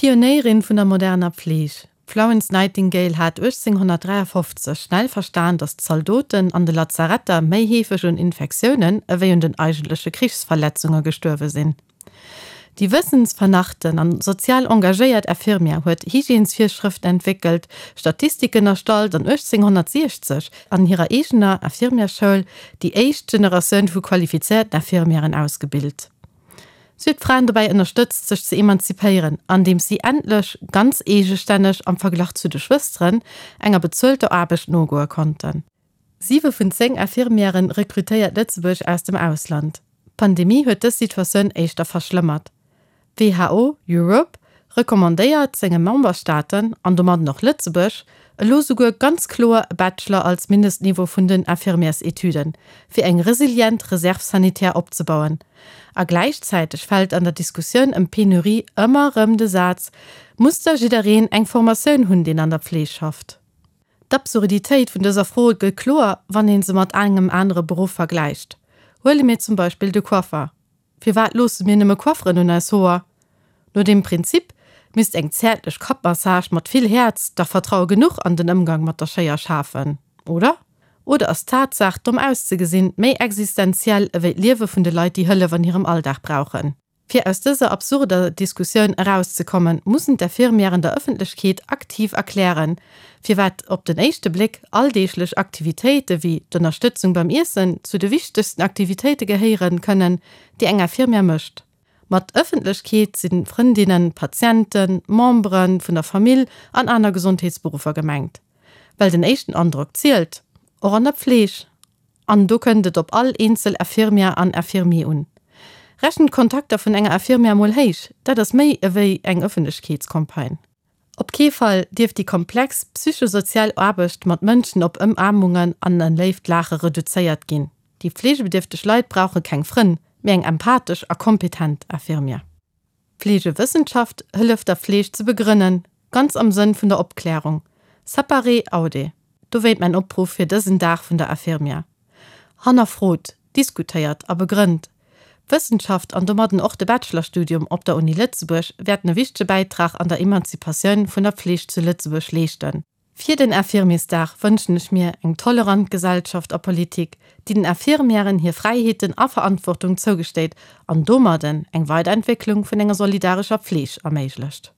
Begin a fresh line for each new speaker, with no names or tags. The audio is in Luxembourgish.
D'Pionéierin vun der moderner Pfleeg, d'Florence Nightingale hat 1853 schnell verstan, datt d'Zaldoten an de Lazaretter méi heefeg un Infektiounen ewéi un den eigentleche Krichsverletzunge gestuerwe sinn. Déi wëssensvernachten an sozial engagéiert Infirmière huet Hygiènesvirschrëften entwéckelt, Statistiken erstallt an 1860 an hirer eegener Infirmièrsschoul déi éischt Generatioun vu qualifizéierten Infirmièren ausgebilt. Si huet d'Fraen dobäi ënnerstëtzt, sech ze emanzipéieren, andeems si endlech ganz eegestänneg am Verglach zu de Schwësteren enger bezuelter Aarbecht nogoe konnten. Siwe vun 10 Infirmièren rekrutéiert Lëtzebuerg aus dem Ausland. D'Pandemie huet dës Situatioun éischter verschlëmmert. D'WHO Europe recommandéiert senge Memberstaaten, an domadden och Lëtzebuerg, elo souguer ganz kloer e Bachelor als Mindestniveau vun den Infirmièrsetüden, fir eng resilient Réserve sanitaire opzebauen. A gläichzäiteg fält an der Diskussioun ëm d'Penurie ëmmer erëm de Saz, Muss da jiddereen eng Formatioun hunn, deen an der Pfleeg schafft? D'Absurditéit vun dëser Fro gëtt kloer, wann ee se mat engem anere Beruff vergläicht. Huele mir zum Beispill de Coiffer. Firwat loosse mir nëmme Coifferen un eis Hoer? No deem Prinzip misst eng zäertlech Kappmassage mat vill Häerz dach Vertraue genuch an den Ëmgang mat der Schéier schafen, oder? Oder ass d'Tatsaach, domm auszegesinn, méi existenziell ewéi d'Liewe vun de Leit, déi Hëllef an hirem Alldag brauchen? Fir aus dëser absurder Diskussioun erauszekommen, mussen d'Infirmièren der Ëffentlechkeet aktiv erklären, firwat op den éischte Bléck alldeeglech Aktivitéite wéi d'Ënnerstëtzung beim Iessen zu de wichtegsten Aktivitéite gehéieren kënnen, déi eng Infirmière mécht. Mat Ëffentlechkeet si Frëndinnen, Patienten, Membere vun der Famill an aner Gesondheetsberuffer gemengt. Well den éischten Androck zielt, och an der Pfleeg. An do kënnt et op all eenzel Infirmière an Infirmier un. Rechent d'Kontakter vun enger Infirmière mol héich, dat ass méi ewéi eng Ëffentlechkeetscampagne. Op kee Fall dierf déi komplex psychosozial Aarbecht mat Mënschen op Ëmaarmungen an e léift Laache reduzéiert ginn. Déi fleegebedierfteg Leit brauche keng Frënn, mee eng empathesch a kompetent Infirmière. D'Fleegewëssenschaft hëlleft der Fleeg ze begrënnen, ganz am Sënn vun der Opklärung. Sapare aude. Dowéint mäin Opruff fir dësen Dag vun der Infirmière. Hannerfrot, diskutéiert a begrënnt. D'Wëssenschaft an domadden och de Bachelorstudium op der Uni Lëtzebuerg wäerten e wichtege Bäitrag an der Emanzipatioun vun der Fleeg zu Lëtzebuerg leeschten. Fir den Infirmiersdag wënschen ech mir eng tolerant Gesellschaft a Politik, déi den Infirmièren hir Fräiheeten a Verantwortung zougesteet an domadden eng Weiderentwécklung vun enger solidarescher Pfleeg erméiglecht.